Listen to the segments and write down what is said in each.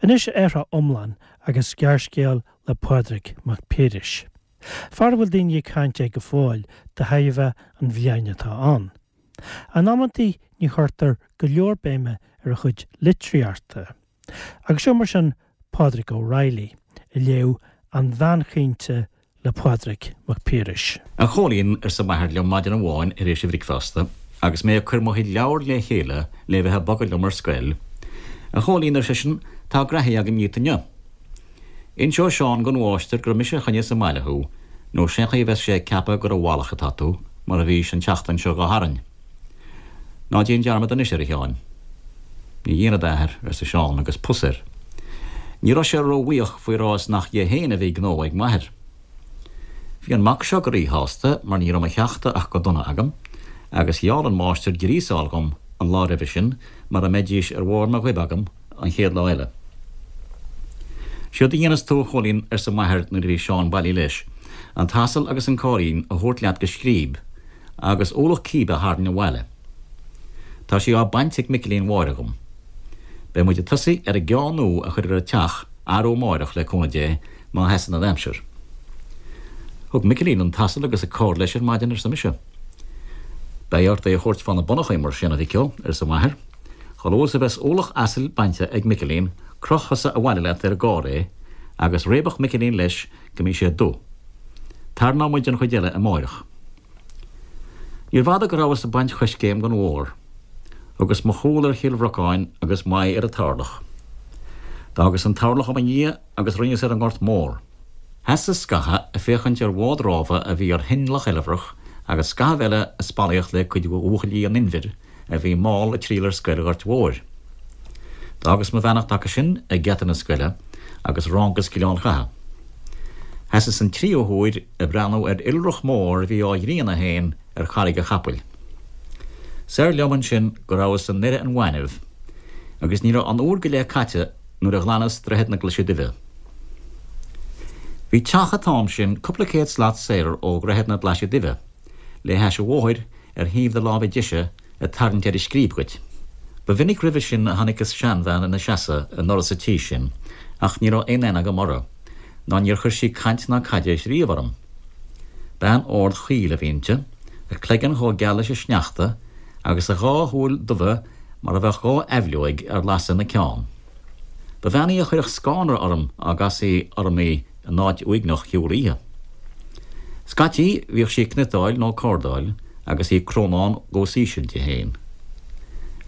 Anois athrá iomlán agus gearrscéal le Pádraig Mac Piarais. Fear a bhfuil daoine ag caint air go fóill de thairbhe an bhliain atá ann. In amantaí ní chuirtear go leor béime ar a chuid litríochta. Agus seo mar sin Pádraig Ó Raghallaigh ag léamh An Bhean Chaointe le Pádraig Mac Piarais. A Chóilín, arsa m'athair liom maidin amháin tar éis an bhricfeasta, agus mé ag cur mo chuid leabhar le chéile le bheith ag bogadh liom ar scoil, A Chóilín, ar seisean, tá graithí agam dhíot inniu. Inseoidh Seán gon mháistir gur mise a choinneos sa mbaile thú, nó sén chaoi a bheas sé ag ceapadh gur i bhfalach atá tú, mar a bhís an tseachtain seo ghabh tharainn. Ná déan dearmad anois air, a Sheáin. Ní dhéanfad, a Athair, arsa Seán agus pus air. Ní raibh sé ró-bhuíoch faoi rá is nach dhe féin a bhí gnó ag m'athair. Bhí an mac seo go rí-shásta mar ní raibh mo cheachta ach go dona agam, agus gheall an máistir gríosáil dhom an lá roimhe sin mara mbeidís ar bharr mo ghoib agam an chéad lá eile. Séard a dhéanfas tú, a Chóilín, arsa m'athair nuair a bhí Seán bailí leis, an t-asal agus an cáirín a thabhairt leat go Scríb, agus ualach cíbe a tharraingt abhaile. Tá sí á baint ag Micilín Mháire dhom. Beidh muid ag tosaí ar an gceá nua a chur ar an teach arú amáireach le cúnamh Dé má sheasann an aimsir. Thug Micilín an t-asal agus an carr leis ar maidin, arsa mise. Beidh ort é a thabhairt fá na bonnachaí mar sin, a mhic ó, arsa m'athair. Chomh luath is a bheas ualach asail bainte ag Micilín, croch thusa abhaile leat ar an gcarr é, agus réabadh Micilín leis go mbí sé dubh. Tarraineoidh muid an chuid eile amáireach. Níorbh fhada go rabhas ag baint choiscéim gon bhóthar. Thugas mo chúl ar Chill Bhrocáin agus m'aghaidh ar an Tarlach. D'fhágas an Tarlach i mo dhiaidh agus rinneas ar an nGort Mór. Sheasas scatha ag féachaint ar bhád rámha a bhí ar thoinn Loch Eilbhreach agus scaitheamh eile ag spallaíocht le cuid de bhuachaillí an Inbhir a bhí mall ag triall ar scoil Ghoirt Mhóir. D'fhágas mo bheannacht acu sin ag geata na scoile agus rángas Gleann Chatha. Sheasas an tríú huair ag breathnú ar iolrach mór a bhí á ghrianadh féin ar Charraig a' Chapaill. Soir liom ansin go rabhas i nDoire an Ghainimh agus ní raibh an uair go leith caite nuair a ghlanas Droichead na Glaise Duibhe. Bhí teach an t-am sin cúpla céad slat soir ó Dhroichead na Glaise Duibhe, le hais an bhóthair ar thaobh do láimhe deise ag tarraingt ar an scríb dhuit. Ba mhinic roimhe sin a chonaiceas seanbhean ina seasamh i ndoras an tí sin ach ní raibh aon aithne agam uirthi, ná níor chuir sí caint ná caidéis riamh orm. Bean ard chaol a bhí inti, a cloigeann chomh geal leis an sneachta agus a dhá shúil dubha mar a bheadh dhá aibhleoig ar lasadh ina ceann. Ba bhean í a chuirfeadh scanradh orm dá gcasfaí orm í in áit uaigneach shiúl oíche. Scaití bhíodh sí ag cniotáil nó ag cardáil agus í ag crónán os íseal di féin.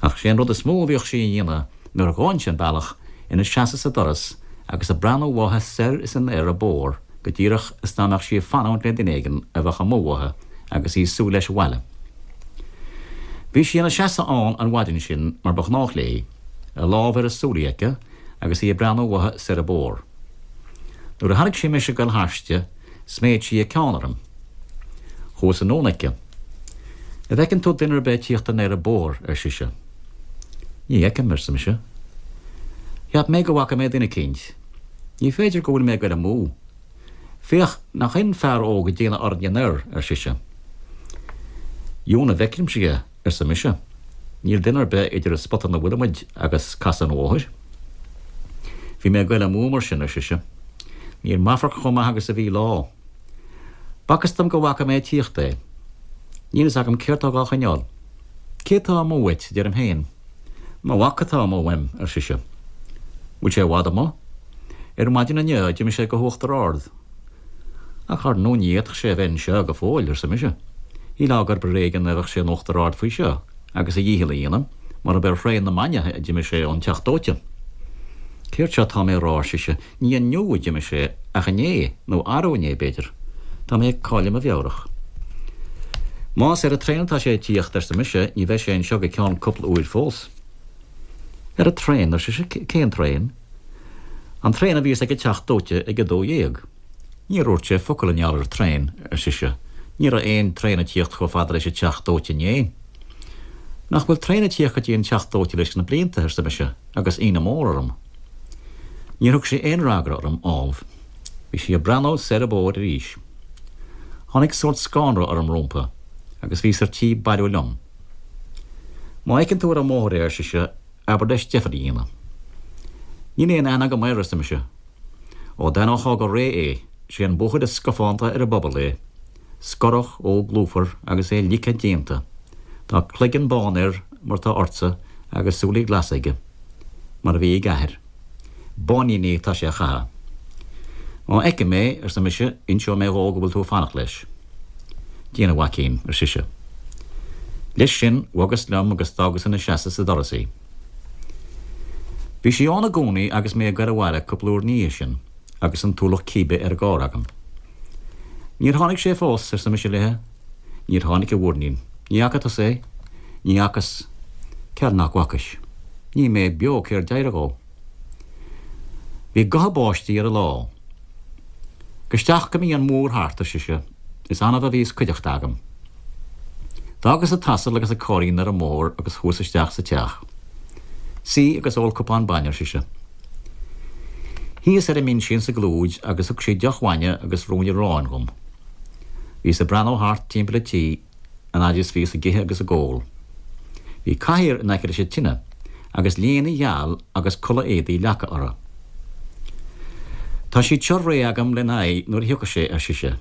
Ach sé an rud is mó a bhíodh sí a dhéanamh nuair a ghabhainnse an bealach, ina seasamh sa doras agus ag breathnú uaithi soir is anoir an bóthar go díreach is dá mbeadh sí ag fanúint le duine éigin a bheadh amuigh uaithi agus í ag súil leis abhaile. Bhí sí ina seasamh ann an mhaidin sin mar ba ghnách léi, a lámh ar a súilí aici agus í ag breathnú uaithi soir an bóthar. Nuair a chonaic sí mise ag goil thairsti, sméid sí a ceann orm. Chuas anonn aici. An bhfeiceann tú duine ar bith ag tíocht anoir an bóthar, ar sise. Ní fheicim, arsa mise. Cheap mé go bhfaca mé duine eicínt. Ní féidir go bhfuil mé ag goil amú. Féach, nach in fear óg ag déanamh orainne anoir, ar sise. Dheamhan a bhfeicimse é. arsa mise. Níl duine ar bith idir an spota 'na bhfuilimid agus casadh an bhóthair. Bhí mé ag goil amú mar sin, ar sise. Níl m'amharc chomh maith agus a bhí lá. B'fhacthas dom go bhfaca mé ag tíocht é. Níl fhios agam céard tá dhá choinneáil. Cé tá amuigh uait, deirim féin. Mo mhac atá amuigh uaim, ar sise. Bhfuil sé i bhfad amuigh? Ar maidin inniu d'imigh sé go hUachtar Ard. Ach ar ndóigh ní fhéadfadh sé a bheith anseo go fóill, arsa mise. Shílfeá gurb ar éigean a bheadh sé in Uachtar Ard faoi seo agus a dhícheall a dhéanamh, mar ab ar thraein na maidne a d'imigh sé ón teach dóite. Céard seo atá mé a rá, ar sise, ní inniu a d'imigh sé ach inné, nó arú inné, b'fhéidir. Tá mé ag cailleadh mo mheabhrach. Más ar an traein atá sé ag tíocht, arsa mise, ní bheidh sé anseo go ceann cúpla uair fós. Ar an traein, ar sise, cén traein? An traein a bhíos ag an teach dóite ag a 12. Níor dhúirt sé focal i ngeall ar traein, ar sise. Ní raibh aon traein ag tíocht chomh fada leis an teach dóite inné. Nach bhfuil traein ag tíocht go dtí an teach dóite leis na blianta, arsa mise, agus ionadh mór orm. Níor thug sí aon fhreagra orm, ámh. Bhí sí ag breathnú soir an bóthar arís. Tháinig sórt scanradh orm rómpa, agus bhíos ar tí bailiú liom. Má fheiceann tú ar an mbóthar é, ar sise, abair leis deifir a dhéanamh. Níl aon aithne agam air, arsa mise. Ó d'aithneofá go réidh é, sé an buachaill is scafánta ar an bpobal é. Scorach, óg lúfar agus é ligthe déanta. Tá cloigeann bán air mar tá ortsa agus súilí glasa aige, mar a bhí ag a athair. Báiníní atá sé a chaitheamh. Má fheicim é, arsa mise, inseoidh mé dhó go bhfuil tú ag fanacht leis. Déan, a mhaicín, ar sise. Leis sin, bhogas liom agus d'fhágas ina seasamh sa doras í. Bhí sí ann i gcónaí agus mé ag goil abhaile cúpla uair ina dhiaidh sin agus an t-ualach cíbe ar an gcarr agam. Níor tháinig sé fós, arsa mise léithe. Níor tháinig, a mhuirnín. Ní fhaca tusa é? Ní fhacas. Ceal nach bhfacais. Ní mé beo cér d'éirigh dhó. Bhí gotha báistí ar an lá. Gabh isteach go mbí an múr thart, ar sise. Is annamh a bhíos cuideachta agam. D'fhágas an t-asal agus an cairrín ar an mbóthar agus chuas isteach sa teach. Suigh agus ól cupán bainne, ar sise. Shuíos ar an mbinse insa gclúid agus thug sí deoch bhainne agus ruainne aráin dhom. Bhíos ag breathnú thart timpeall an tí an fhaid is bhíos ag ithe agus ag ól. Bhí cathaoir in aice leis an tine agus léine gheal agus culaith éadaí leagtha uirthi. Tá siad seo réidh agam lena aghaidh nuair a thiocfas sé, ar sise.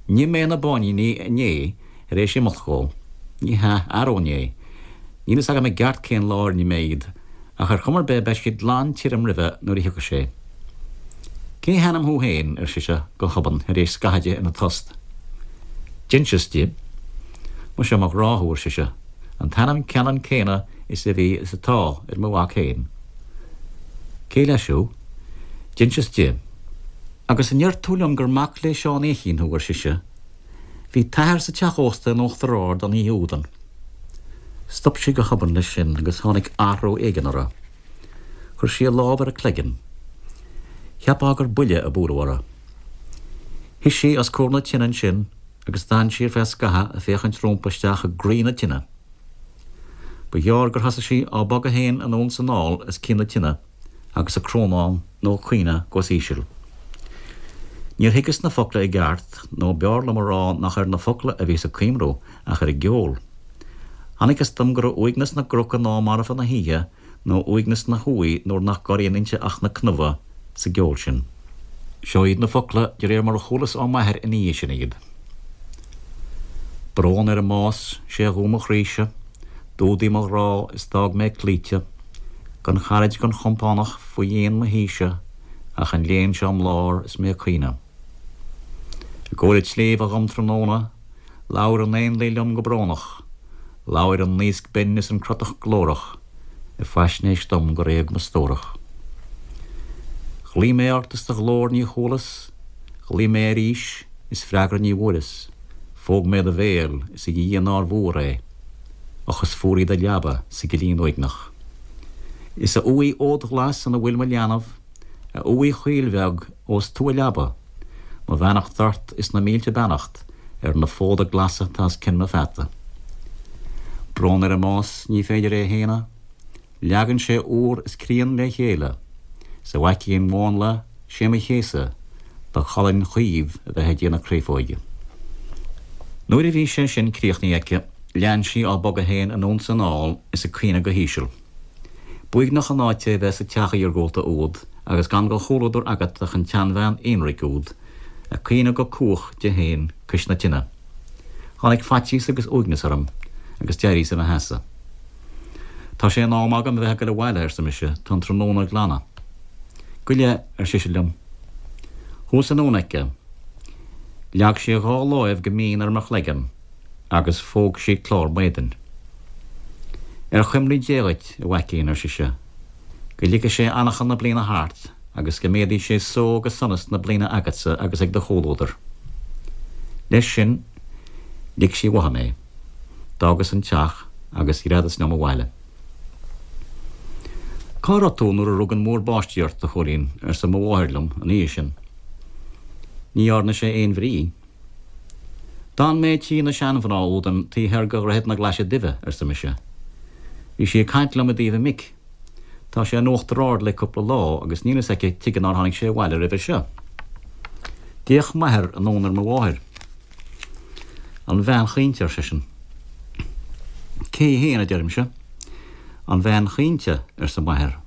Nigh mé na báiníní inné tar éis imeacht dhó. Ní hea, arú inné. Níl fhios agam i gceart cén lá ar nigh mé iad, ach ar chuma ar bith beidh siad glan tirim roimhe nuair a thiocfas sé. Cé hainm thú féin? ar sise go hobann tar éis scathaimh di ina tost. D'inseas di. Muise mo ghrá thú, ar sise, an t-ainm ceannann céanna is a bhí is atá ar mo mhac féin. Cé leis thú? D'inseas di. Agus an ndeir tú liom gur mac le Seán Fhéichín thú, ar sise. Bhí t'athair sa teach ósta in Uachtar Ard an oíche údan. Stop sí go hobann leis sin agus tháinig athrú éigin uirthi. Chuir sí a lámh ar a cloigeann. Cheapfá gur buille a buaileadh uirthi. Shuigh sí os comhair na tine ansin agus d'fhan sí ar feadh scathaimh ag féachaint rómpa isteach i gcroí na tine. Ba ghearr gur thosaigh sí á bogadh féin anonn 's anall os cionn na tine agus ag crónán nó ag caoineadh go híseal. Níor thuigeas na focla i gceart, nó b'fhearr liom a rá nach ar na focla a bhíos ag cuimhniú ach ar an gceol. Chonacthas dom go raibh uaigneas na gcroc in am marfa na hoíche nó uaigneas na huaighe nuair nach gcorraíonn inti ach na cnámha sa gceol sin. Seo iad na focla de réir mar a chualas ó m'athair ina dhiaidh sin iad. Brón ar an mbás, sé a dhó mo chroíse, d'fhuadaigh mo ghrá is d'fhág mé cloíte, gan charaid gan chompánach faoi dhéin mo thíse ach an léan seo im lár is mé ag caoineadh. I gcomhair an tsléibhe dhom tráthnóna, Labhair an éanlaith liom go brónach, Labhair an naosc binn is an crotach glórach Ag faisnéis dom gur éag mo stórach. Ghlaoigh mé ort is do ghlór ní chualas, Ghlaoigh mé arís is freagra ní bhfuaireas, Phóg mé do bhéal is a Dhia nár mhór é, Och is fuar í do leaba sa gcillín uaigneach. Is a uaigh fhódghlas ina bhfuil mo leanbh, A uaigh chaoil bheag ós tú a leaba, Mo bheannacht ort is na mílte beannacht ar na fóda glasa atá os cionn mo pheata. Brón ar an mbás, ní féidir é a shéanadh, Leagann sé úr is críon le chéile, 'S a mhaicín mhánla, sé mo chéasadh do cholainn chaomh a bheith ag déanamh créafóige. Nuair a bhí sé sin críochnaithe aici, lean sí á bogadh féin anonn 's anall is ag caoineadh go híseal. B'uaigneach an áit é a bheith sa teach iargúlta úd agus gan de chomhluadar agat ach an tseanbhean aonraic úd ag caoineadh go cumhach di féin cois na tine. Tháinig faitíos agus uaigneas orm agus d'éiríos i mo sheasamh. Tá sé in am agam a bheith ag goil abhaile, arsa mise, tá an tráthnóna ag glanadh. Gabh i leith, ar sise liom. Chuas anonn aici. Leag sí a dhá láimh go mín ar mo chloigeann. agus phóg sí clár m'éadain. Ar chuimhní Dé dhuit, a mhaicín, ar sise, go lige sé anachain na bliana thart agus go méadaí sé só agus sonas na bliana agatsa agus ag do chomhluadar. Leis sin, lig sí uaithi mé. D'fhágas an teach agus ghreadas liom abhaile. Cá raibh tú nuair a rug an múr báistí ort, a Chóilín? arsa mo mháthair liom an oíche sin. Ní dhearna sé aon bhrí. D'fhan mé tí na seanmhná údan taobh thoir de Dhroichead na Glaise Duibhe, arsa mise. Bhí sí ag caint liom i dtaobh a mic. Tá sé in Uachtar Ard le cúpla lá agus níl fhios aici tuige nár tháinig sé abhaile roimhe seo. D'fhéach m'athair anonn ar mo mháthair. An bhean chaointe, ar seisean. Cé í fhéin, a deirimse. An bhean chaointe, arsa m'athair.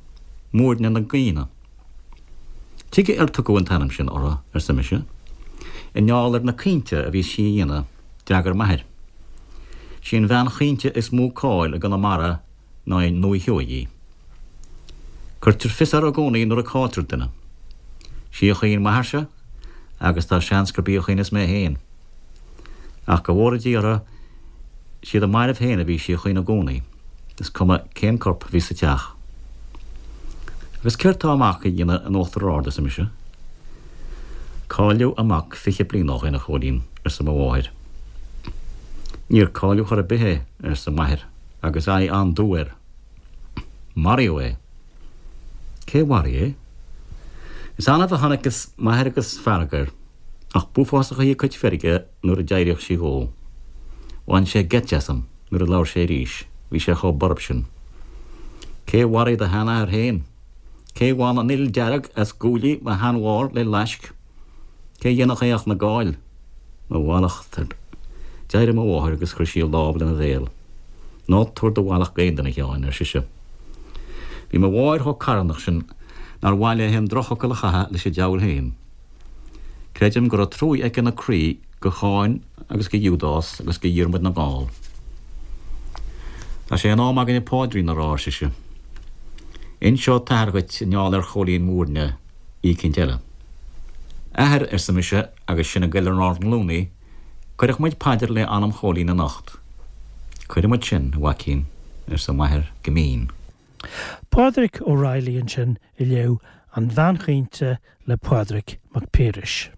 Muirne na gCaoineadh. Tuige ar tugadh an t-ainm sin uirthi, arsa mise. I ngeall ar na caointe a bhíos sí a dhéanamh, d'fhreagair m'athair. Sí an bhean chaointe is mó cáil i gConamara ná i nDúiche Sheoighe í. Cuirtear fios uirthi i gcónaí nuair a cailltear duine. Sí a chaoin m'athairse agus tá seans gurb í a chaoineas mé féin. Ach go bhfóire Dia orthu, siad a mairbh féin a bhí sí a chaoineadh i gcónaí, is cuma cén corp a bhí sa teach. Agus céard tá a mac a dhéanamh in Uachtar Ard, arsa mise. Cailleadh a mac 20 bliain ó shin, a Chóilín, arsa mo mháthair. Níor cailleadh chor ar bith é, arsa m'athair agus aghaidh an-dubh air. Maraíodh é. Cé mharaigh é? Is annamh a chonaiceas m'athair agus fearg air, ach b'uafásach í a cuid feirge nuair a d'éiríodh sí dhó. Bhain sé geit asam nuair a labhair sé arís, bhí sé chomh borb sin. Cé mharaigh do sheanathair féin? Cé bhain an fhuil dearg as guaillí mo sheanmháthar le laisc? Cé dhéanfadh é ach na Gaill? Mo mhallacht ort. D'éirigh mo mháthair agus chuir sí a lámh lena bhéal. Ná tabhair do mhallacht d'aon duine, a Sheáin, ar sise. Bhí mo mháthair chomh carthanach sin nár mhaith léi an drochfhocal a chaitheamh leis an diabhal féin. Creidim go raibh truaí aici ina croí go Cháin agus go Iúdás agus go Dhiarmaid na nGall. Tá sé in am againne paidrín a rá, ar sise. Inseoidh t'athair dhuit i ngeall ar Chóilín Mhúirne oíchint eile. Athair, arsa mise agus sinn ag goil ar ár nglúiní, cuirfidh muid paidir le anam Chóilín anocht. Cuirfidh muid sin, a mhaicín, arsa m'athair go mín. Pádraig Ó Raghallaigh ansin ag léamh An Bhean Chaointe le Pádraig Mac Piarais.